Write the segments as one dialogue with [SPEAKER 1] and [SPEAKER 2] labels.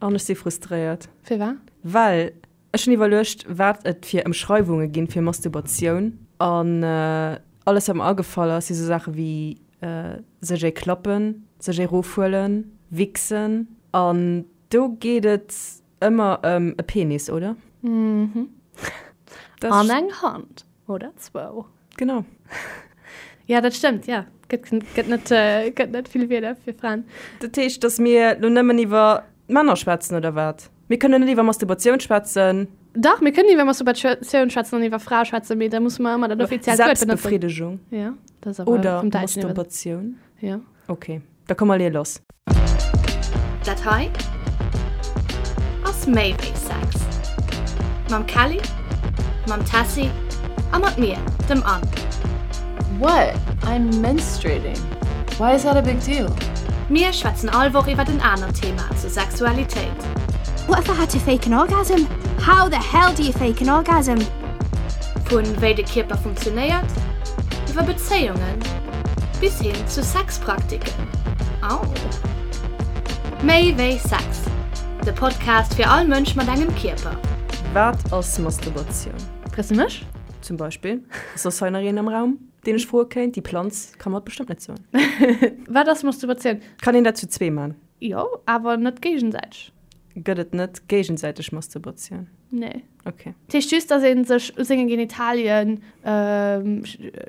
[SPEAKER 1] An ech si frustréiert.
[SPEAKER 2] Firwat?
[SPEAKER 1] Well ech hunn iwwerluecht, wat et fir Ëmschreiwunge ginn fir Masturbatioun. An alles, wat mer agefall ass, si sou Saache wéi sech ee klappen, sech ee rofhuelen, wichsen. An do geet et ëmmer ëm e Penis, oder?
[SPEAKER 2] Mhm. An eng Hand. Oder zwou.
[SPEAKER 1] Genau.
[SPEAKER 2] Ja, dat stëmmt, ja. Gëtt, gëtt net, äh, gëtt net vill Wierder fir Fraen.
[SPEAKER 1] Dat heescht, dass mir lo nëmmen iwwer d'Männer schwätzen, oder wat? Mir kënnen net iwwer Masturbatioun schwätzen.
[SPEAKER 2] Dach, mir kënnen iwwer Masturbatioun schwätzen an iwwer Frae schwätzen, mee da musse mer ëmmer dat offiziellt
[SPEAKER 1] Wuert benotzen. Selbstbefriedigung.
[SPEAKER 2] Ja, dat ass awer
[SPEAKER 1] Oder
[SPEAKER 2] vum Däitschen iwwer.
[SPEAKER 1] Masturbatioun.
[SPEAKER 2] Ja.
[SPEAKER 1] Ok, da komm mer leeë lass.
[SPEAKER 3] Dat hei ass méi wéi Sex. Mam Kelly, mam Tessy a mat mir, dem Anne.
[SPEAKER 4] What? I'm menstruating. Why is that a big deal?
[SPEAKER 3] Mir schwätzen all Woch iwwert en anert Thema zur Sexualitéit.
[SPEAKER 5] What if I had to fake an orgasm? How the hell do you fake an orgasm?
[SPEAKER 3] Vun wéi de Kierper funktionéiert, iwwer Bezéiungen bis hin zu Sexpraktiken. Au! Méi wéi Sex, de Podcast fir all Mënsch mat engem Kierper.
[SPEAKER 1] Wat ass Masturbatioun?
[SPEAKER 2] Frees de mech?
[SPEAKER 1] Zum Beispill. Ass soss hei nach een am Raum, deen ech froe kéint? Déi Planz ka mer et bestëmmt net soen.
[SPEAKER 2] Wat ass Masturbatioun?
[SPEAKER 1] Kann een dat zu zwee man?
[SPEAKER 2] Jo, awer net géigesäiteg.
[SPEAKER 1] Gëtt et net géigesäiteg Masturbatioun?
[SPEAKER 2] Nee.
[SPEAKER 1] Ok.
[SPEAKER 2] Dat heescht just, dass ee sech u senge Genitalien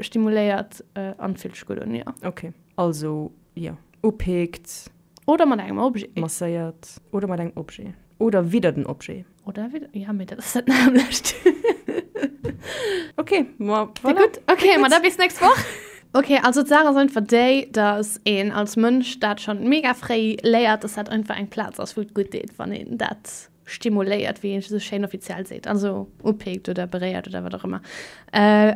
[SPEAKER 2] stimuléiert an et fillt sech gutt un, jo.
[SPEAKER 1] Ok, also jo, upikt.
[SPEAKER 2] Oder mat engem Objet.
[SPEAKER 1] Masséiert. Oder mat engem Objet. Oder widder den Objet.
[SPEAKER 2] Oder widder, ja, mee dat ass dat nämmlecht.
[SPEAKER 1] Ok, ma
[SPEAKER 2] voilà. Gutt, ok, ma da bis nächst Woch. Ok, also d'Saach ass einfach déi, dass een als Mënsch dat schonn mega fréi léiert, dass dat einfach eng Plaz ass, wou et gutt deet, wann een dat stimuléiert, wéi een esou schéin offiziell seet, also upikt oder beréiert oder wat och ëmmer.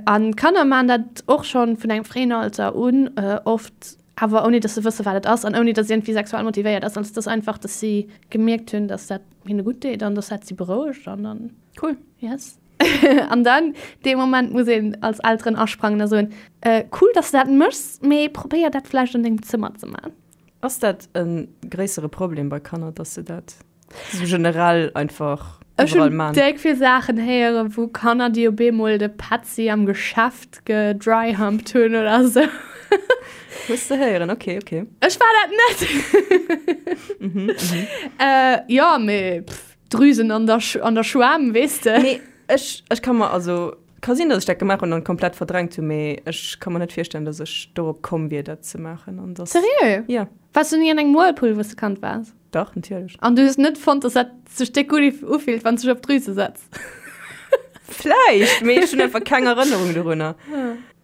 [SPEAKER 2] An d'Kanner maachen dat och schonn vun engem fréien Alter un, oft awer ouni dass se wësse wat et ass an ouni dass et iergendwéi sexuell motivéiert ass. Also et ass einfach, dass si gemierkt hunn, dass dat hinne gutt deet an dass dat si berouegt an dann.
[SPEAKER 1] Cool.
[SPEAKER 2] Yes. An dann, dee Moment muss een als Elteren asprangen a soen, Cool, dass de dat méchs, mee probéier dat vläicht an dengem Zëmmer ze man.
[SPEAKER 1] Ass dat e gréissere Problem bei Kanner, dass se dat sou generell einfach
[SPEAKER 2] Ech hunn déck vill Saachen héieren, wou Kanner, déi op eemol de Petzi am Geschäft gedryhumped hunn oder sou.
[SPEAKER 1] Hues de héieren, ok, ok.
[SPEAKER 2] Ech war dat net. Jo, mee pff. Drüsen an der, an der Schwämm, weess de.
[SPEAKER 1] Nee, ech, ech ka mer, also, ka sinn, datt ech dat gemaach hunn an komplett verdrängt hunn, mee ech ka mer net virstellen, datt ech dorop komm wier, dat ze maachen an datt.
[SPEAKER 2] Seriö?
[SPEAKER 1] Ja.
[SPEAKER 2] Waars du ni an engem Whirlpool, wou s de Kand waars?
[SPEAKER 1] Dach, natierlech.
[SPEAKER 2] An du hues net fonnt, datt dat sech déck gutt ufillt, wann s de dech op d'Drüse setz?
[SPEAKER 1] Vläicht, mee ech hunn einfach keng Erënnerung dorunner.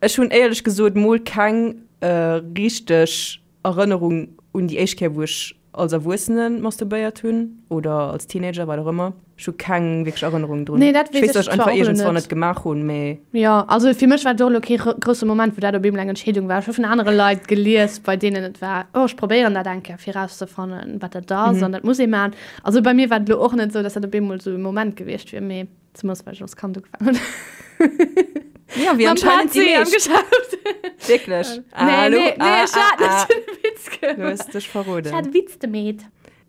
[SPEAKER 1] Ech hunn éierlech gesot mol keng richteg Erënnerung un déi éischt Kéier, wou ech als Erwuessene masturbéiert hunn oder als Teenager, wat och ëmmer. Ech hu keng wierklech Erënnerung drun.
[SPEAKER 2] Nee, dat
[SPEAKER 1] Ech
[SPEAKER 2] weess
[SPEAKER 1] weess, datt
[SPEAKER 2] ech
[SPEAKER 1] ech einfach
[SPEAKER 2] zwar och elo
[SPEAKER 1] iergendswann
[SPEAKER 2] net.
[SPEAKER 1] et gemaach hunn, mee.
[SPEAKER 2] Jo, also fir mech war et och elo kee grousse Moment, wou dat op eemol eng Entscheedung war. Ech hu vun anere Leit gelies, bei deenen et war, oh, ech probéieren dat eng Kéier, fir erauszefannen, wat dat ass an dat muss ee maachen. Also bei mir war et elo och net esou, datt dat op eemol esou e Moment gewiescht wier, mee. Zumools well ech als Kand ugefaangen hunn.
[SPEAKER 1] Ja, wéi
[SPEAKER 2] Mam
[SPEAKER 1] anscheinend déi
[SPEAKER 2] Petzi am
[SPEAKER 1] meescht.
[SPEAKER 2] Geschäft.
[SPEAKER 1] Wierklech?
[SPEAKER 2] Nee,
[SPEAKER 1] Hallo?
[SPEAKER 2] nee, nee,
[SPEAKER 1] Ah,
[SPEAKER 2] ech hat
[SPEAKER 1] ah, ah.
[SPEAKER 2] net den Witz
[SPEAKER 1] Du
[SPEAKER 2] gemaach.
[SPEAKER 1] hues dech verroden.
[SPEAKER 2] Ech hat e Witz gemeet.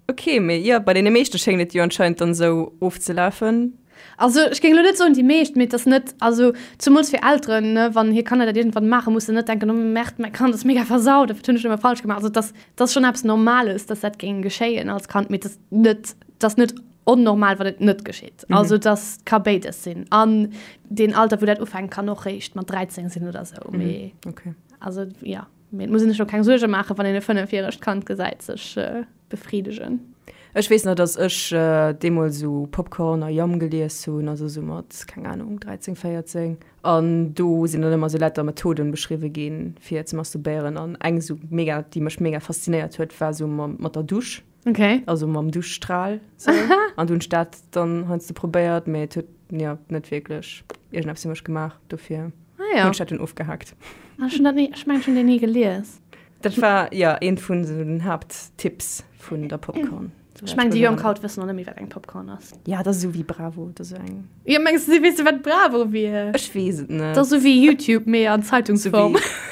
[SPEAKER 1] Okay, mee jo, bei deene meeschte schéngt et jo anscheinend dann esou ofzelafen.
[SPEAKER 2] Also ech géing elo net soen déi meescht, mee et ass net, also zumools fir Elteren, ne, wann hir Kanner dat iergendwann maachen, musse net denken, oh Merde, mäi Kand ass mega versaut, wat hunn ech nëmme falsch gemaach. Also et ass, et ass schonn eppes Normales, dass dat géing geschéien als Kand, mee et ass net, et ass net onnormal, wann et net geschitt. Mhm. Also das ka béides sinn. An den Alter, wou dat ufänkt, kann och réischt mat 13 sinn oder sou.
[SPEAKER 1] Mhm.
[SPEAKER 2] Mee,
[SPEAKER 1] okay.
[SPEAKER 2] Also ja, mee et muss een sech och keng Suerge maachen, wann een e fënnefjäregt Kand gesäit sech äh, befriedegen.
[SPEAKER 1] Ech weess nach, dass ech äh, deemools sou Popcorn a Yum gelies hunn, also sou mat, keng Ahnung, 13, 14. An do sinn dann ëmmer sou lauter Methoden beschriwwe ginn, fir ze masturbéieren. An eng sou mega, déi mech mega faszinéiert huet, war sou mat der Dusch.
[SPEAKER 2] Okay.
[SPEAKER 1] Also mam Duschstrahl. So. An du hunn ech dat dann heiansdo probéiert, mee et huet ja, net wierklech iergendeppes fir mech gemaach. Dofir
[SPEAKER 2] ah, ja.
[SPEAKER 1] hunn ech dat dunn ofgehaakt.
[SPEAKER 2] Ah, ech hunn dat ni, ech mengen, ech hunn deen ni gelies.
[SPEAKER 1] Dat war ja eent vun sou den Haapttipps vun der Popcorn.
[SPEAKER 2] Ech mengen, déi Jonk haut wëssen och net méi, wat eng Popcorn ass.
[SPEAKER 1] Ja, dat ass esou wéi Bravo, dat ass esou eng.
[SPEAKER 2] Ja, mengs du, si wësse wat Bravo wier?
[SPEAKER 1] Ech weess et net.
[SPEAKER 2] Dat ass esou wéi YouTube, mee an Zeitungsform.
[SPEAKER 1] Sou wéi.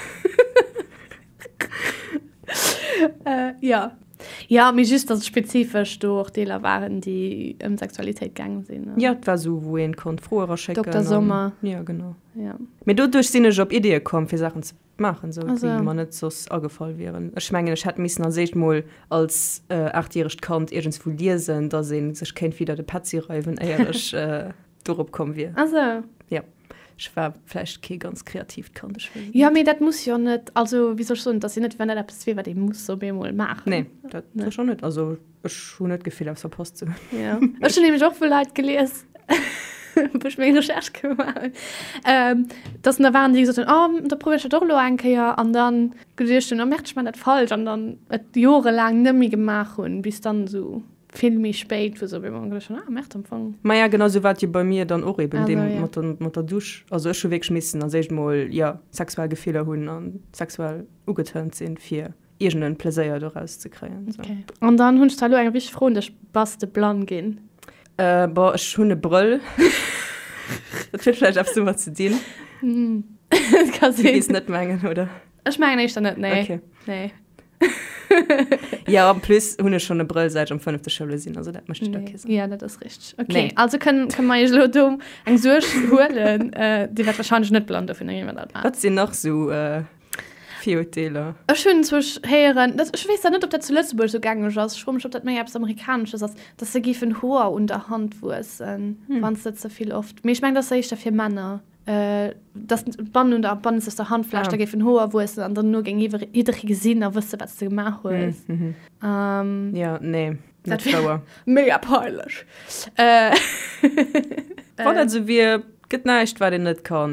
[SPEAKER 2] Äh, ja. Jo, mee just, dass et spezifesch do och Deeler waren, déi ëm Sexualitéit gaange sinn.
[SPEAKER 1] Jo, et war esou, wou een konnt Froe eraschécken.
[SPEAKER 2] Dokter Sommer.
[SPEAKER 1] Jo, genau. Jo. Mee doduerch sinn ech op Ideeë komm, fir Saachen ze maachen, esou, déi mer net soss agefall wieren. Ech mengen, ech hätt missen als éischt mol als aachtjäregt Kand iergendswou liesen, dass ee sech kéint widder de Petzi reiwen, éier ech dorop komm wier.
[SPEAKER 2] Ah sou.
[SPEAKER 1] Jo. Ech war vläicht kee ganz kreatiivt Kand, ech
[SPEAKER 2] weess et net. Jo, mee dat muss jo net, also wéi soll ech soen, et ass jo net, wéi wann dat eppes wier, wat ee muss op eemol maachen.
[SPEAKER 1] Nee, dat sécher net. Also ech hunn net d'Gefill, eppes verpasst ze hunn.
[SPEAKER 2] Jo, ech hunn nämlech och vu Leit gelies, wou ech meng Recherche gemaach hunn, dass da waren, déi gesot hunn, oh, da probéier ech dat och elo eng Kéier an dann geduecht hunn, oh merde, ech maachen dat falsch an dann et jorelaang net méi gemaach hunn, bis dann esou Vill méi spéit, wou se op eemol geduecht hunn, ah merde, am Fong.
[SPEAKER 1] Maja, genau sou war et jo bei mir dann och eben, deem mat der, mat der Dusch. Also ech hu wierklech missen als éischt mol, jo, sexuell Gefiller hunn a sexuell ugetörnt sinn, fir iergend en Pleséier doraus ze kréien.
[SPEAKER 2] Sou. Okay. An dann hunn ech zwar elo eng wichteg Fro un dech, Bass de blann ginn?
[SPEAKER 1] Bon, ech hunn e Brëll. Dat huet vläicht eppes domat ze dinn.
[SPEAKER 2] Dat ka
[SPEAKER 1] sinn. Du gees net mengen, oder?
[SPEAKER 2] Ech mengen éischter net, nee.
[SPEAKER 1] Okay.
[SPEAKER 2] Nee.
[SPEAKER 1] Ja, en plus hunn ech schonn e Brëll säit ech am fënnefte Schouljoer sinn, also dat mécht da kee Sënn.
[SPEAKER 2] Ja, dat ass richteg. Okay, nee. Also kënnen, kënnen mer iech elo do eng Suerg huelen. Äh, Dir wäert wahrscheinlech net blann dofir, iwwer
[SPEAKER 1] dat maacht. Wat sinn nach sou äh, Virurteeler?
[SPEAKER 2] Ech hunn zwar héieren, dat, ech weess dat net, ob dat zu Lëtzebuerg sou gängeg ass, ech froe mech, ob dat méi eppes Amerikanesches ass, dass se géifen Hoer un der Hand wuessen, hm. wann s de ze vill oft. Mee ech mengen, dat ass éischter fir Männer. dass d'Bannen un der bannenzegster Handfläch da géifen Hoer wuessen an dann no géing jidderee gesinn a wësse wat s de gemaach hues.
[SPEAKER 1] Jo, nee,
[SPEAKER 2] net wouer. Mega peinlech.
[SPEAKER 1] Wann dat esou wier, gëtt näischt wat een net ka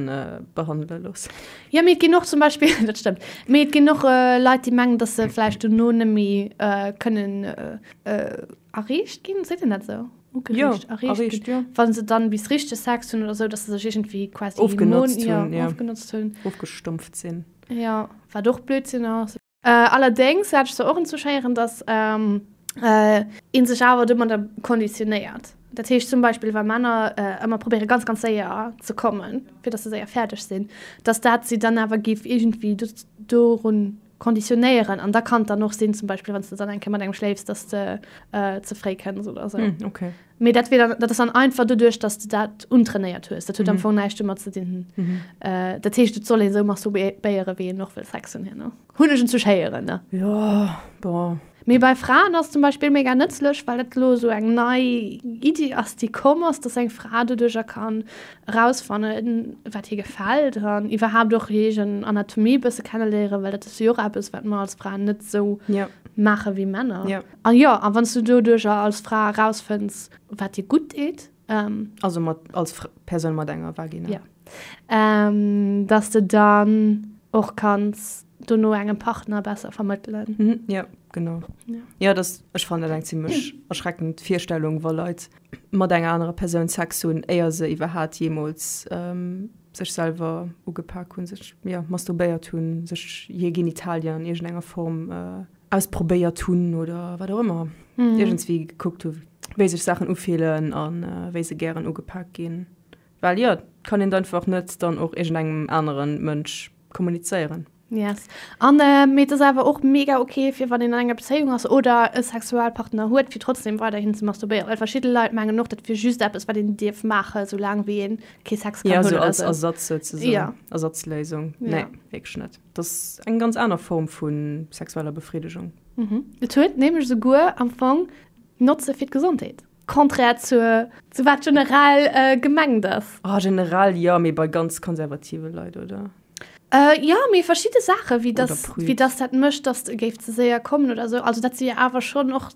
[SPEAKER 1] behandele loossen.
[SPEAKER 2] Jo, mee et ginn och zum Beispill, dat stëmmt, mee et ginn och Leit déi mengen, dass se vläicht dono net méi kënnen erreecht ginn, seet een dat esou?
[SPEAKER 1] Ugereegt, ja, erreegt, erreegt, ja.
[SPEAKER 2] Wann se dann bis richteg Sex hunn oder sou, dass se sech iergendwéi
[SPEAKER 1] quasi ofgenotzt
[SPEAKER 2] hunn, ja, ja. ofgenotzt hunn.
[SPEAKER 1] Ofgestumpft sinn.
[SPEAKER 2] Ja, wat och Blödsinn ass. Äh, allerdéngs hat ech se och entzouschéieren, dass ähm, äh, een sech awer domadder konditionéiert. Dat heescht zum Beispill, wa Männer äh, ëmmer probéiere ganz, ganz séier ze kommen, fir dass se séier fäerdeg sinn, dass dat si dann awer géif iergendwéi dorun Konditionéieren an da kann et dann och sinn, zum Beispill wann s de dann eng Kéier mat engem schléifs, dass de ze fréi kënns oder esou.
[SPEAKER 1] Mm, okay.
[SPEAKER 2] Mee dat wier dann, dat ass dann einfach doduerch, dass de dat untrainéiert hues. Dat huet am Fong näischt domat ze dinn. Dat heescht, et soll ee sou masturbéieren, wéi een och wëll Sex hunn herno. Hunn ech en zu héieren, ne?
[SPEAKER 1] Jo, bon.
[SPEAKER 2] Mee bei Fraen ass zum Beispill mega nëtzlech, well dat elo esou eng nei Iddi ass, déi komm ass, dass eng Fra doduercher kann erausfannen, wat hir gefält an iwwerhaapt och hir eegen Anatomie e bësse kenneléieren, well dat ass jo och eppes, wat mer als Fraen net esou maache wéi Männer. An jo, a wann s du doduercher als Fra erausfënns, wat dir gutt deet,
[SPEAKER 1] Also mat, als Persoun mat enger Vagina.
[SPEAKER 2] Jo. Dass de dann och kanns dono engem Partner besser vermëttelen.
[SPEAKER 1] Mhm, ja, genau. Ja, ja das, ech fannen dat eng zimmlech erschreckend Virstellung, wa Leit mat enger anerer Persoun Sex hunn, éier se iwwerhaat jeemools ähm, sech selwer ugepak hunn, sech ja, masturbéiert hunn, sech hir Genitalien an iergendenger Form äh, ausprobéiert hunn oder wat och ëmmer. Mhm. Iergendswéi gekuckt hu, wéi sech Saachen ufillen an äh, wéi se gären ugepak ginn. Well jo, kann een einfach net dann och iergendengem anere Mënsch kommunizéieren.
[SPEAKER 2] Yes. An mee et ass awer och mega ok fir wann een an enger Bezéiung ass oder e Sexualpartner huet, fir trotzdem weiderhin ze masturbéieren. Well verschidde Leit mengen och, dat wier just eppes wat een dierf maachen, soulaang wéi een kee Sex
[SPEAKER 1] kann hunn oder esou. Ja, sou als Ersatz souzesoen. Ja. Ersatzléisung. Ja. Nee, wierklech net. Dat ass eng ganz aner Form vu sexueller Befridegung.
[SPEAKER 2] Mhm. Et huet nämlech esouguer am Fong Notze fir d'Gesondheet. Contraire zur, zu wat generell gemengt ass.
[SPEAKER 1] Oh, generell jo, mee bei ganz konservative Leit, oder?
[SPEAKER 2] Jo, mee verschidde Saachen, wéi dass, wéi dass dat mécht, dass e géif ze séier kommen oder esou. Also dat si jo awer schonn och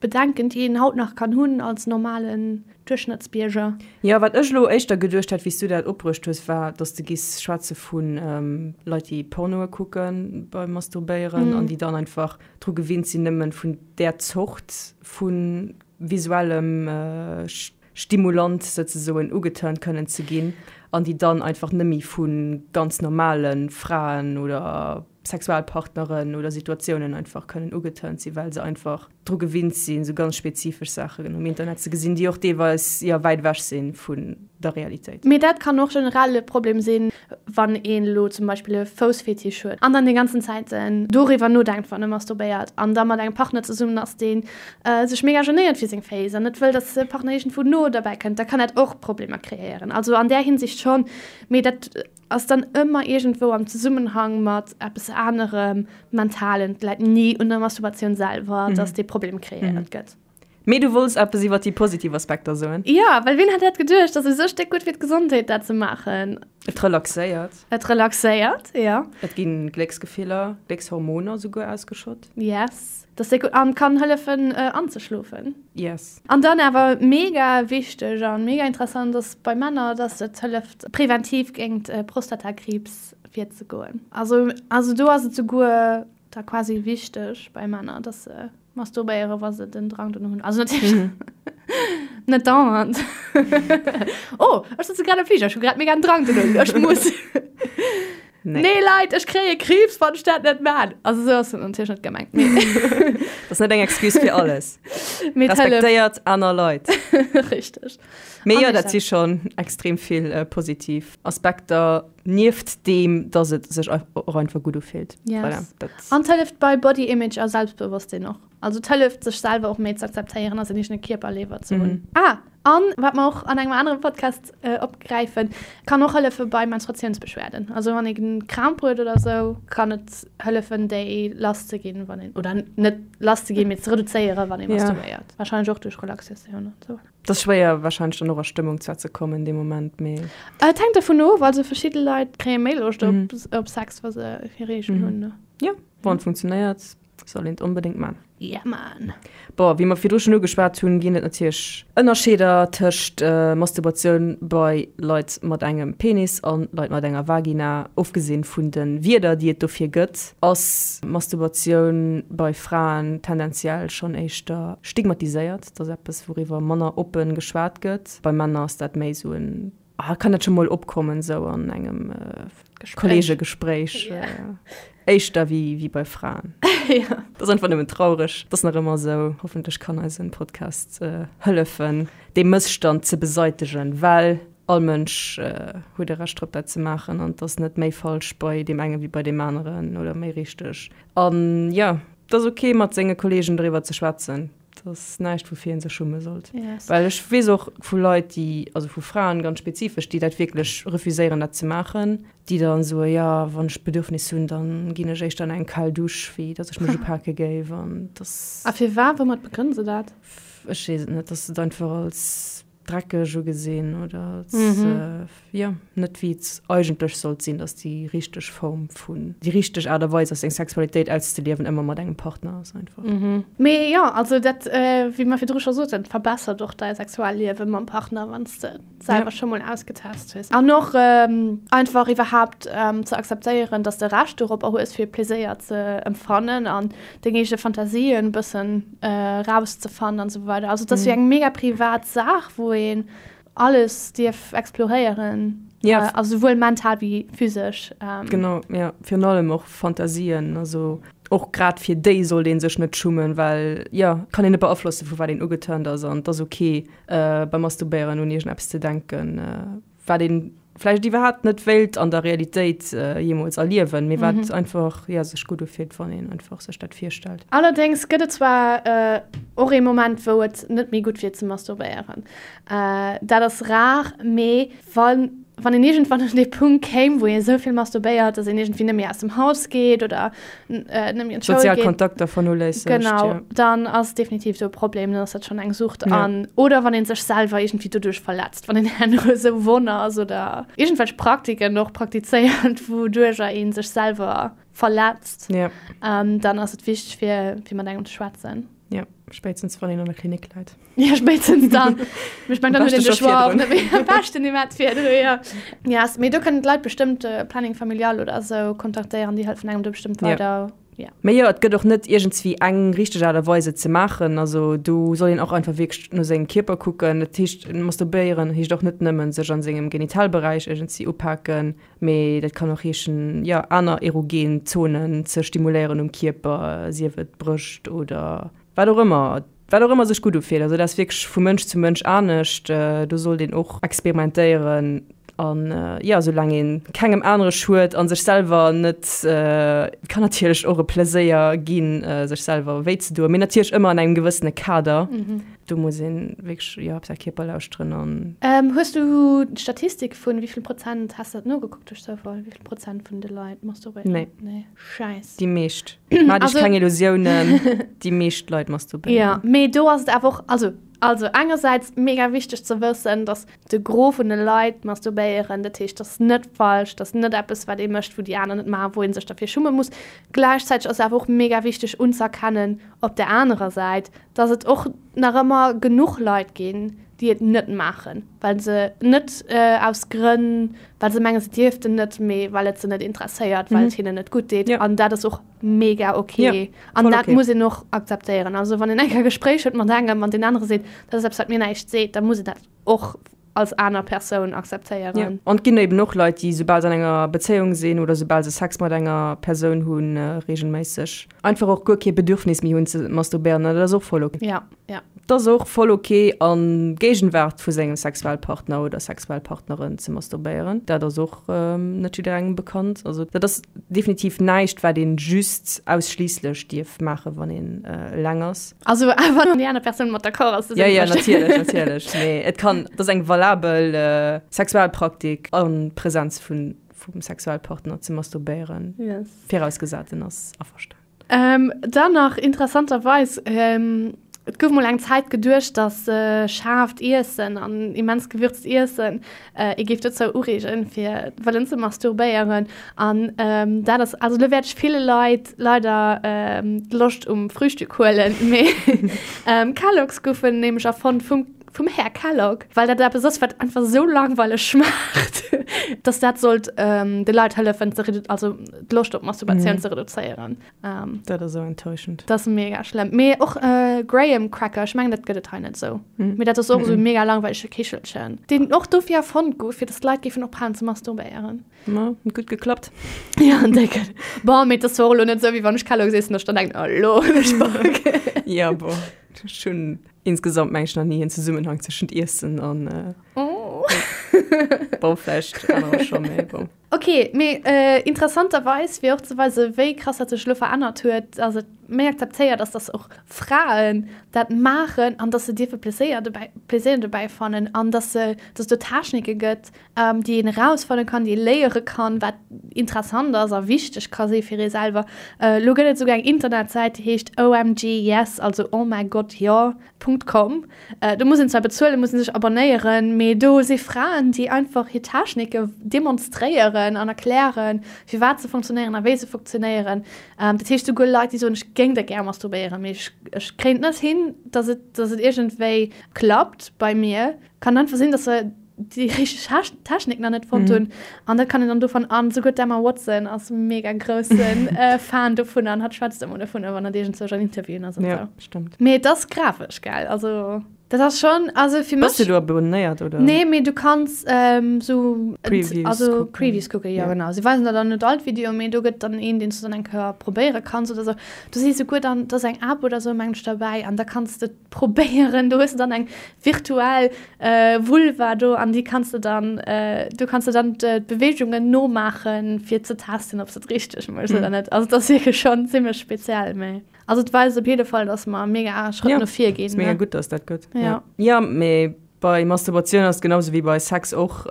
[SPEAKER 2] Bedenken, déi een haut nach kann hunn als normalen Duerchschnëttsbierger.
[SPEAKER 1] Jo, wat ech elo éischter geduecht hat, wéi s du dat opbruecht hues, war, dass de giss schwätze vu Leit, déi Pornoe kucke beim Masturbéieren an déi dann einfach dru gewinnt sinn, nëmmen vun där Zort vu visuellem Stimulant souzesoen ugeturnt kënnen ze ginn an déi dann einfach nëmmi vu ganz normale Fraen oder Sexualpartneren oder Situatiounen einfach kënnen ugeturnt sinn, well se einfach. dru gewinnt sinn, sou ganz spezifesch Saachen um Internet ze gesinn, déi och deelweis, jo, wäit ewech si vun der Realitéit.
[SPEAKER 2] Mee dat kann och generell e Problem sinn, wann een elo zum Beispill e Foussfetisch huet an dann déi ganzen Zäit doriwwer nodenkt, wann e masturbéiert an da mat engem Partner zesummen ass, dee sech mega genéiert fir seng Féiss an net wëll, dass de Partner iergendwou no derbäi kënnt, da kann dat och Problemer kreéieren. Also an där Hinsicht schonn, mee dat ass dann ëmmer iergendwou am Zesummenhang mat eppes anerem Mentalen. Et läit ni un der Masturbatioun selwer, dass dee Problem kreéiert gëtt.
[SPEAKER 1] Mee du wollts eppes iwwer déi positiv Aspekter soen?
[SPEAKER 2] Jo, well wien hätt dat geduecht, dass et esou stéck gutt fir d'Gesondheet dat ze maachen.
[SPEAKER 1] Et relaxéiert.
[SPEAKER 2] Et relaxéiert, jo.
[SPEAKER 1] Et ginn Glécksgefiller, Gléckshormoner souguer ausgeschott.
[SPEAKER 2] Yes, dat ass déck gutt an kann hëllefen anzeschlofen.
[SPEAKER 1] Yes.
[SPEAKER 2] An dann awer mega wichteg an mega interessant ass bei Männer, dass et hëlleft präventiv géingt Prostatakriibs virzegoen. Also also do ass et souguer da quasi wichteg bei Männer, dass se masturbéieren, wa se den Drang dono hunn. Also natierlech net dauernd. Oh, ech sëtze grad am Fliger, ech hu grad mega den Drang dono, ech muss.
[SPEAKER 1] Nee.
[SPEAKER 2] Nee Leit, ech kréie Kriibs, wann ech dat net maan. Also esou ass et natierlech net gemengt. Mee
[SPEAKER 1] Dat ass net eng Excuse fir alles.
[SPEAKER 2] Mee et hëlleft.
[SPEAKER 1] Respektéiert aner Leit.
[SPEAKER 2] Richteg.
[SPEAKER 1] Mee
[SPEAKER 2] An
[SPEAKER 1] jo,
[SPEAKER 2] ech
[SPEAKER 1] dat si schonn extrem vill positiv Aspekter, nieft deem, dass et sech och einfach gutt ufillt.
[SPEAKER 2] Yes.
[SPEAKER 1] Voilà, dat.
[SPEAKER 2] An et hëlleft bei Body Image a Selbstbewosstsinn och. Also et hëlleft, sech selwer och méi ze akzeptéieren a säin eegene Kierper léiwer ze hunn. Ah, an wat mer och an engem anere Podcast opgräifen, kann och hëllefe bei Menstruatiounsbeschwerden. Also wann ee Kramp huet oder esou, kann et hëllefen, déi lass ze ginn, wann een, oder net lass ze ginn, mee ze reduzéieren, wann ee masturbéiert. Warscheinlech och duerch Relaxatioun an esou.
[SPEAKER 1] Et ass schwéier warscheinlech dann och a Stëmmung zwar ze kommen dee Moment, mee.
[SPEAKER 2] Et hänkt dovun of, also verschidde Leit kréie méi Loscht op Sex, wa se hir Reegel hunn.
[SPEAKER 1] Jo, wann et funktionéiert. Soll een et onbedéngt man.
[SPEAKER 2] Yeah man.
[SPEAKER 1] Bon, wéi mer virdru schonn ugeschwat hunn, ginn et natierlech Ënnerscheeder tëscht Masturbatioun bei Leit mat engem Penis an Leit mat enger Vagina. Ofgesinn vun de Wierder, déi et dofir gëtt, ass Masturbatioun bei Fraen tendenziell schonn éischter stigmatiséiert. Dat ass eppes, wouriwwer manner oppe geschwat gëtt. Bei Männer ass dat méi esou en Ah, kann dat scho mol opkommen sou an engem Kollegegespréich éischter wéi wéi bei Fraen. Dat ass einfach nëmmen traureg. Dat ass nach ëmmer sou. Hoffentlech kann eisen Podcast hëllefen dee Mësstand ze beseitegen, well all Mënsch huet e Recht drop dat ze maachen an et ass net méi falsch bei deem enge wéi bei deem aneren oder méi richteg. An jo, et ass ok mat senge Kollegen doriwwer ze schwätzen. Dat ass näischt, woufir ee sech schumme sollt.
[SPEAKER 2] Yes.
[SPEAKER 1] Well ech weess och vu Leit, déi, also vu Fraen ganz spezifesch, déi dat wierklech refuséieren, dat ze maachen, déi dann soen, jo, wann ech d'Bedürfnis hunn, da ginn ech éischter an eng kal Dusch, wéi datt ech mech upake géif. An dass.
[SPEAKER 2] A firwat? Woumat begrënne se dat?
[SPEAKER 1] Ech weess et net, dass se et einfach als dreckeg ugesinn oder als jo net wéi et eigentlech sollt sinn, dass déi richteg Form vun, déi richteg Aart a Weis ass seng Sexualitéit auszeliewen ëmmer mat engem Partner ass einfach.
[SPEAKER 2] Mee jo, also dat wéi mer virdru scho soten, verbessert och däi Sexualliewe mam Partner wann s de et selwer scho mol ausgetest hues. An och einfach iwwerhaapt ze akzeptéieren, dass de Recht doropper hues fir Pleséier ze empfannen an deng eege Fantasien e bëssen rauszefannen an esou weider. Also et ass wéi eng mega privat Saach, wou een alles dierf exploréieren,
[SPEAKER 1] Ja.
[SPEAKER 2] also souwuel mental wéi physesch.
[SPEAKER 1] Genau, ja, virun allem och Fantasien, also och grad fir déi sollt ee sech net schummen, well jo, kann een net beaflossen, vu wat een ugeturnt ass an et ass ok beim Masturbéieren un iergendeppes ze denken, wat een vläicht iwwerhaapt net wéilt an der Realitéit jeemools erliewen, mee wat einfach, jo, sech gutt ufillt, wann een einfach sech dat virstellt.
[SPEAKER 2] Allerdéngs gëtt et zwar och ee Moment, wou et net méi gutt wier ze masturbéieren. Dat ass rar, mee wann wann een iergendwann un dee Punkt kéim, wou ee sou vill masturbéiert, datt een iergendwéi net méi aus dem Haus geet oder net méi an d'Schoul
[SPEAKER 1] Sozial
[SPEAKER 2] geet.
[SPEAKER 1] Kontakter vernoléissegt,
[SPEAKER 2] Genau,
[SPEAKER 1] jo.
[SPEAKER 2] dann ass definitiv do e Problem, dann ass dat schonn eng Sucht.
[SPEAKER 1] Ja.
[SPEAKER 2] An oder wann ee sech selwer iergendwéi doduerch verletzt, wann een herno esou wonn ass oder iergendwelch Praktiken och praktizéiert, wouduercher ee sech selwer verletzt,
[SPEAKER 1] Ja.
[SPEAKER 2] dann ass et wichteg, fir fir mat engem ze schwätzen.
[SPEAKER 1] Ja, spéitstens wann een an der Klinik läit.
[SPEAKER 2] Ja, spéitstens dann. Mee ech meng, dann huet een de Choix och net méi.
[SPEAKER 1] Am
[SPEAKER 2] Am beschten iwwerhaapt virdru, jo. Yes, mee do kënnen d'Leit bestëmmt Planning Familial oder esou kontaktéieren, déi hëllefen engem do bestëmmt weider.
[SPEAKER 1] Ja. Mee jo, et gëtt och net iergendswéi eng richteg Aart a Weis et ze maachen. Also do soll een och einfach wierklech no sengem Kierper kucken. Dat heescht, masturbéieren heescht och net nëmmen sech an sengem Genitalberäich iergendswéi upaken, mee dat kann och heeschen, jo, aner erogen Zonen ze stimuléieren um Kierper, sief et d'Brëscht oder. Wat och ëmmer, wat och ëmmer sech gutt ufillt. Also dat ass wierklech vu Mënsch zu Mënsch anescht. Do sollt een och experimentéieren an jo, soulaang ee kengem anere schued a sech selwer net, et kann natierlech och e Pleséier ginn, sech selwer wéi ze doen, mee natierlech ëmmer an engem gewëssene Kader. Do muss ee wierklech, jo, op säi Kierper lauschteren an.
[SPEAKER 2] Hues du d'Statistik vun wéi vill Prozent, has de dat nogekuckt duerch Zoufall, wéi vill Prozent vun de Leit masturbéieren?
[SPEAKER 1] Nee.
[SPEAKER 2] Nee. Scheiss.
[SPEAKER 1] Déi meescht. Maach dech keng Illusiounen, déi meescht Leit masturbéieren.
[SPEAKER 2] Ja, mee do ass et awer och, also, also engersäits mega wichteg ze wëssen, dass de Gros vun de Leit masturbéieren, dat heescht, dat ass net falsch, dat ass net eppes, wat ee mécht, wou déi aner net maachen, wou ee sech derfir schumme muss. Gläichzäiteg ass et awer och mega wichteg unzëerkennen op där anerer Säit, dass et och nach ëmmer genuch Leit ginn, déi et net maachen, well se net aus Grënn, well se mengen, se dierften net, mee well et se net interesséiert, well et hinnen net gutt deet. An dat ass och mega ok. An dat muss een och akzeptéieren. Also wann een eng Kéier e Gespréich huet mat engem an deen anere seet, dat ass eppes, wat mir näischt seet, da muss een dat och als aner Persoun akzeptéieren.
[SPEAKER 1] Ja. An et ginn eben och Leit, déi soubal se an enger Bezéiung sinn oder soubal se Sex mat enger Persoun hunn, reegelméisseg einfach och guer kee Bedürfnis méi hunn ze masturbéieren. An dat ass och voll ok.
[SPEAKER 2] Ja, ja.
[SPEAKER 1] Et ass och voll ok a Géigenwaart vu sengem Sexualpartner oder Sexualpartnerin ze masturbéieren. Dat ass och net jidderengem bekannt. Also dat ass definitiv näischt, wat een just ausschliisslech dierf maachen, wann een eleng ass.
[SPEAKER 2] Also wann déi aner Persoun mat d'accord ass.
[SPEAKER 1] Ja, ja, natierlech, natierlech. Mee et kann, et ass eng valabel Sexualpraktik a Präsenz vun, vum Sexualpartner ze masturbéieren.
[SPEAKER 2] Yes.
[SPEAKER 1] Virausgesat en ass averstanen.
[SPEAKER 2] Dann nach interessanterweis, et gouf mol eng Zäit geduecht, datt schaarft Iessen an immens gewürzt Iessen ee géif dozou ureegen, fir wëllen ze masturbéieren. An dat ass, also elo wäert ech ville Leit leider d'Loscht um Frühstück huelen, mee Kellogg's goufen nämlech erfonnt vum vum Här Kellogg, well dat eppes ass, wat einfach esou langweileg schmaacht, dass dat sollt de Leit hëllefen, ze also d'Loscht op Masturbatioun ze reduzéieren.
[SPEAKER 1] Dat ass esou enttäuschend.
[SPEAKER 2] Dat ass mega schlëmm. Mee och Graham Cracker, ech mengen dat gëtt et hei net esou, mee dat ass och esou e mega langweilege Kichelchen, deen och dofir erfonnt gouf, fir dass d'Leit géifen ophalen ze masturbéieren.
[SPEAKER 1] Ma, huet gutt geklappt.
[SPEAKER 2] Ja, déck. Bon, mee et ass zwar och elo net esou, wéi wann ech Kellogg's iessen, dass ech dann denken, oh elo hunn ech Bock.
[SPEAKER 1] Ja, bon, ech hunn insgesamt meng ech nach ni en Zesummenhang tëschent Iessen an
[SPEAKER 2] Oh.
[SPEAKER 1] bon, vläicht anerer scho, mee bon.
[SPEAKER 2] Ok, mee interessanterweis, fir och ze weisen, wéi krass dat sech elo verännert huet, ass et méi akzeptéiert ass, dass och Fraen dat maachen an dass se dierfe Pleséier dobäi, Pleséier dobäi fannen an dass se, dass et do Technike gëtt, déi een erausfanne kann, déi ee léiere kann, wat interessant ass a wichteg ka si fir ee selwer. Elo gëtt et esouguer eng Internetsäit, déi heescht OMG Yes, also Oh mäi Gott jo, Punkt com. Do muss een zwar bezuelen, muss een sech abonnéieren, mee do si Fraen, déi einfach hir Technike demonstréieren an erklären, firwat se funktionéieren a wéi se funktionéieren. Dat heescht, souguer Leit, déi soen, ech géing da gär masturbéieren, mee ech, ech kréien et net hin, dass et, dass et iergendwéi klappt bei mir. Kann einfach sinn, dass se déi richteg Technik nach net fonnt hunn. An dat kann een dann dovun an souguer d'Emma Watson ass mega groussen Fan dovun an hatt schwätzt ëmmer dovun, wann hatt iergendzwousch an Interviewen ass an
[SPEAKER 1] Ja, sou. stimmt.
[SPEAKER 2] Mee et ass grafesch, gell? Also dat ass schonn, also fir
[SPEAKER 1] Bass mech. du do abonnéiert oder?
[SPEAKER 2] Nee, mee du kanns sou
[SPEAKER 1] Previews
[SPEAKER 2] also
[SPEAKER 1] kucken.
[SPEAKER 2] Previews kucken, jo
[SPEAKER 1] Ja.
[SPEAKER 2] genau. Si weisen der dann net all d'Videoen, mee do gëtt dann een, deen s du dann eng Kéier probéiere kanns oder sou. Do si souguer dann, do ass eng App oder sou mengen ech derbäi an da kanns de probéieren. Do hues de dann eng virtuell Vulva do an déi kanns de dann, do kanns de dann d'Beweegungen nomaachen, fir ze testen, ob s de et richteg méchs oder net. Also et ass wierklech schonn zimmlech speziell, mee also et weist op jidde Fall, dass mer mega Schrëtt no vir ginn.
[SPEAKER 1] Ass mega gutt, dass dat gëtt.
[SPEAKER 2] Ja.
[SPEAKER 1] Jo, mee bei Masturbatioun ass et genau sou wéi bei Sex och,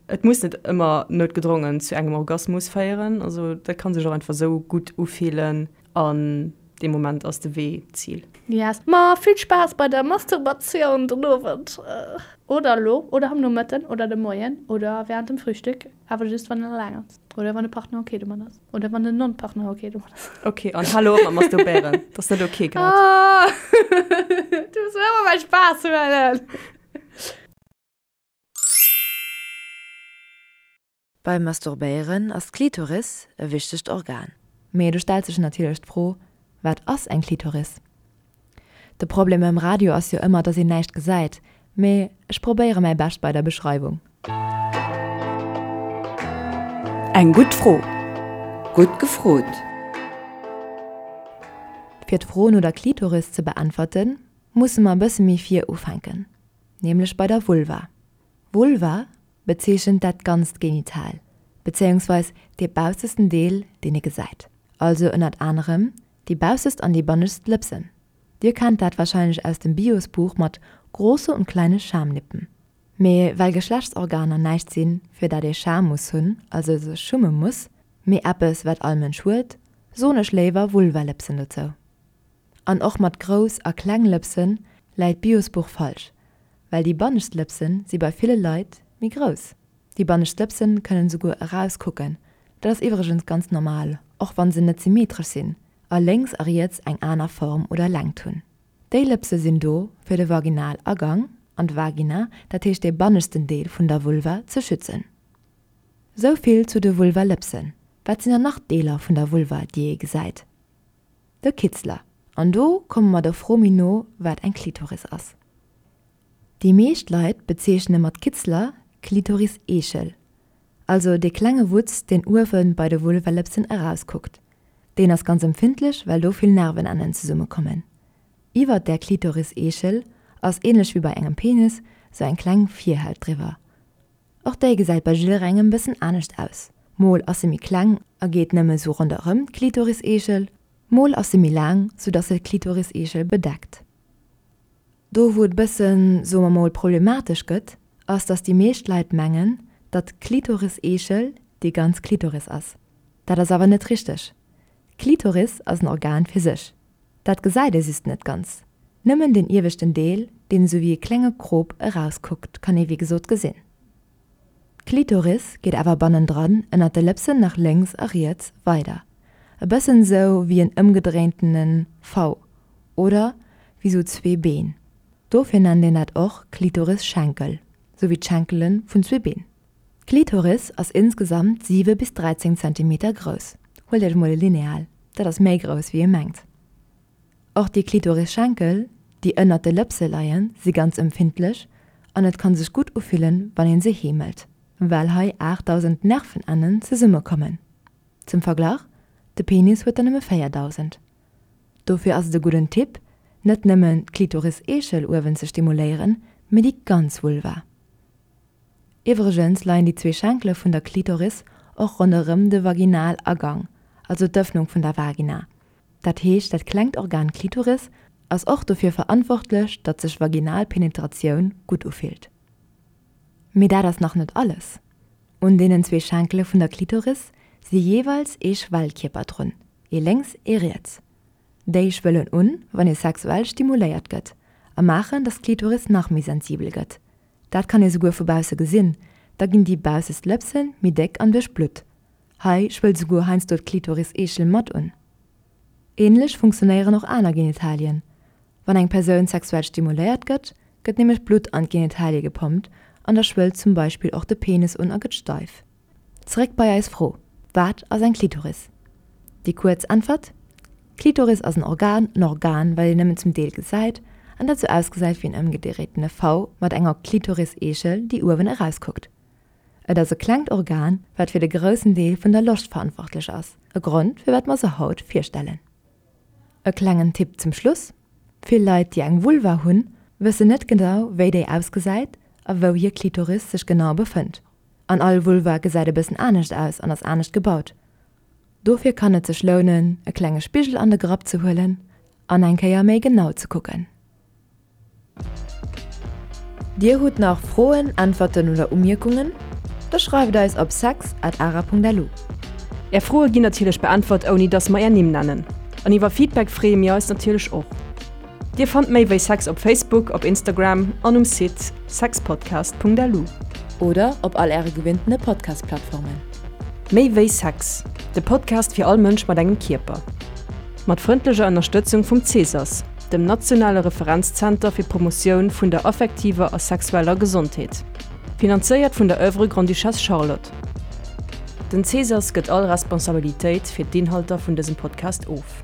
[SPEAKER 1] et muss net ëmmer noutgedrongen zu engem Orgasmus féieren. Also dat ka sech och einfach sou gutt ufillen an Dee Moment ass de Wee d'Zil.
[SPEAKER 2] Yes, ma vill Spaass bei der Masturbatioun den Owend, oder elo, oder am Nomëtten, oder de Moien, oder während dem Frühstück, awer just wann een eleng ass, oder wann de Partner ok domat ass, oder wann den Non-Partner ok domat ass.
[SPEAKER 1] Ok, an hal elo op mat masturbéieren, dat ass net ok grad.
[SPEAKER 2] Ah, du muss mir ëmmer mäi Spaass huelen.
[SPEAKER 4] Beim Masturbéieren ass d'Klitoris e wichtegt Organ. Mee do stellt sech natierlech d'Fro, Wat ass eng Klitoris? De Problem beim Radio ass jo ëmmer, dass een näischt gesäit, mee ech probéiere mäi Bescht bei der Beschreiwung.
[SPEAKER 6] Eng gutt Fro. Gutt gefrot.
[SPEAKER 4] Fir d'Fro no der Klitoris ze beäntwerten, musse mer e bësse méi vir ufänken, nämlech bei der Vulva. Vulva bezeechent dat ganzt Genital, bezéiungsweis dee baussesten Deel, deen ee gesäit, also ënnert anerem déi baussest an déi bannescht Lëpsen. Dir kennt dat warscheinlech aus dem Biosbuch mat große und kleine Schamlippen. Mee well Geschlechtsorganer näischt sinn, fir dat ee Scham muss hunn, also sech schumme muss, mee eppes wat all Mënsch huet, soen ech léiwer Vulvalëpsen dozou. An och mat grouss a kleng Lëpsen läit d'Biosbuch falsch, well déi bannescht Lëpsen si bei ville Leit méi grouss. Déi bannescht Lëpsen kënnen esouguer erauskucken, dat ass iwwregens ganz normal, och wann se net symmetresch sinn a lénks a riets eng aner Form oder Längt hunn. Déi Lëpse sinn do fir de Vaginalagang an d'Vagina, dat heescht dee banneschten Deel vun der Vulva, ze schützen. Sou vill zu de Vulvalëpsen. Wat sinn dann nach Deeler vun der Vulva, déi ee gesäit? De Kitzler. An do komme mer der Fro méi no, wat eng Klitoris ass. Déi meescht Leit bezeechne mat Kitzler d'Klitoris-Eechel, also dee klenge Wutz, deen uewe bei de Vulvalëpsen erauskuckt. Deen ass ganz empfindlech, well do vill Nervenennen zesummekommen. Iwwert där Klitoris-Eechel ass, ähnlech wéi bei engem Penis, sou eng kleng Virhaut driwwer. Och déi gesäit bei jidderengem bëssen anescht aus, mol ass se méi kleng a geet nëmme sou ronderëm d'Klitoris-Eechel, mol ass se méi laang, sou dass se d'Klitoris-Eechel bedeckt. Do wou et bëssen, soe mer mol, problematesch gëtt, ass dass déi meescht Leit mengen, datt d'Klitoris-Eechel déi ganz Klitoris ass. Dat ass awer net richteg. D'Klitoris ass en Organ fir sech. Dat gesäit ee just net ganz. Nëmmen den ieweschten Deel, deen esou wéi e klenge Krop erauskuckt, kann ee wéi gesot gesinn. D'Klitoris geet awer bannendran ënnert de Lëpsen nach lénks a riets weider, e bëssen esou wéi en ëmgedréintene V oder wéi sou zwee Been. Dofir nennt een dat och Klitorisschenkel, sou wéi d'Schenkele vun zwee Been. D'Klitoris ass insgesamt 7 bis 13 Zentimeter grouss. Huelt iech mol e Lineal, dat ass méi grouss wéi ee mengt. Och déi Klitorisschenkel, déi ënnert de Lëpse leien, si ganz empfindlech an et kann sech gutt ufillen, wann een se heemelt, well hei 8.000 Nervenennen zesummekommen. Zum Verglach, de Penis huet der nëmme 4.000. Dofir ass et e gudden Tipp, net nëmmen d'Klitoris-Eechel uewen ze stimuléieren, mee déi ganz Vulva. Iwwregens leien déi zwee Schenkele vun der Klitoris och ronderëm de Vaginalagang, also d'Ëffnung vun der Vagina. Dat heescht, dat klengt Organ Klitoris ass och dofir verantwortlech, datt sech vaginal Penetratioun gutt ufillt. Mee dat ass nach net alles! Un deenen zwee Schenkele vun der Klitoris si jeeweils ee Schwellkierper drun, ee lénks, ee riets. Déi schwëllen un, wann ee sexuell stimuléiert gëtt a maachen, datt d'Klitoris nach méi sensibel gëtt. Dat kann ee souguer vu bausse gesinn, da ginn déi baussest Lëpse méi déck an duerchblutt. Hei schwëllt souguer heiansdo d'Klitoris-Eechel mat un. Ähnlech funktionéieren och aner Genitalien. Wann eng Persoun sexuell stimuléiert gëtt, gëtt nämlech Blutt an d'Genitalie gepompt an da schwëllt zum Beispill och de Penis un a gëtt steif. Zeréck bei eis Fro, Wat ass eng Klitoris? Déi kuerz Äntwert, D'Klitoris ass en Organ, en Organ, wat een nëmmen zum Deel gesäit an dat sou ausgesäit wéi en ëmgedréitene V mat enger Klitoris-Eechel, déi uewen erauskuckt. Et ass e klengt Organ, wat fir de groussen Deel vun der Loscht verantwortlech ass, e Grond, firwat mer se haut virstellen. E klengen Tipp zum Schluss, Vill Leit, déi eng Vulva hunn, wëssen net genau, wéi déi ausgesäit a wou hir Klitoris sech genau befënnt. An all Vulva gesäit e bëssen anescht aus an ass anescht gebaut. Dofir kann et sech lounen, e klenge Spigel an de Grapp ze huelen an eng Kéier méi genau ze kucken. Dir hutt nach Froen, Äntwerten oder Umierkungen? Da schreift eis op sex at ara.lu.
[SPEAKER 1] Är Froe ginn natierlech beäntwert ouni dass mer är Nimm nennen. An iwwer Feedback freeë mir eis natierlech och. Dir fannt méi wéi Sex op Facebook, op Instagram an um Site sexpodcast.lu.
[SPEAKER 4] Oder op all äre gewinntene Podcast-Plattformen.
[SPEAKER 1] Méi wéi Sex, de Podcast fir all Mënsch mat engem Kierper. Mat frëndlecher Ënnerstëtzung vum Cesas, dem nationale Referenzzenter fir d'Promotioun vun der affektiver a sexueller Gesondheet. Finanzéiert vun der Oeuvre Grande-Duchesse Charlotte. Den Cesas gëtt all Responsabilitéit fir d'Inhalter vun dësem Podcast of.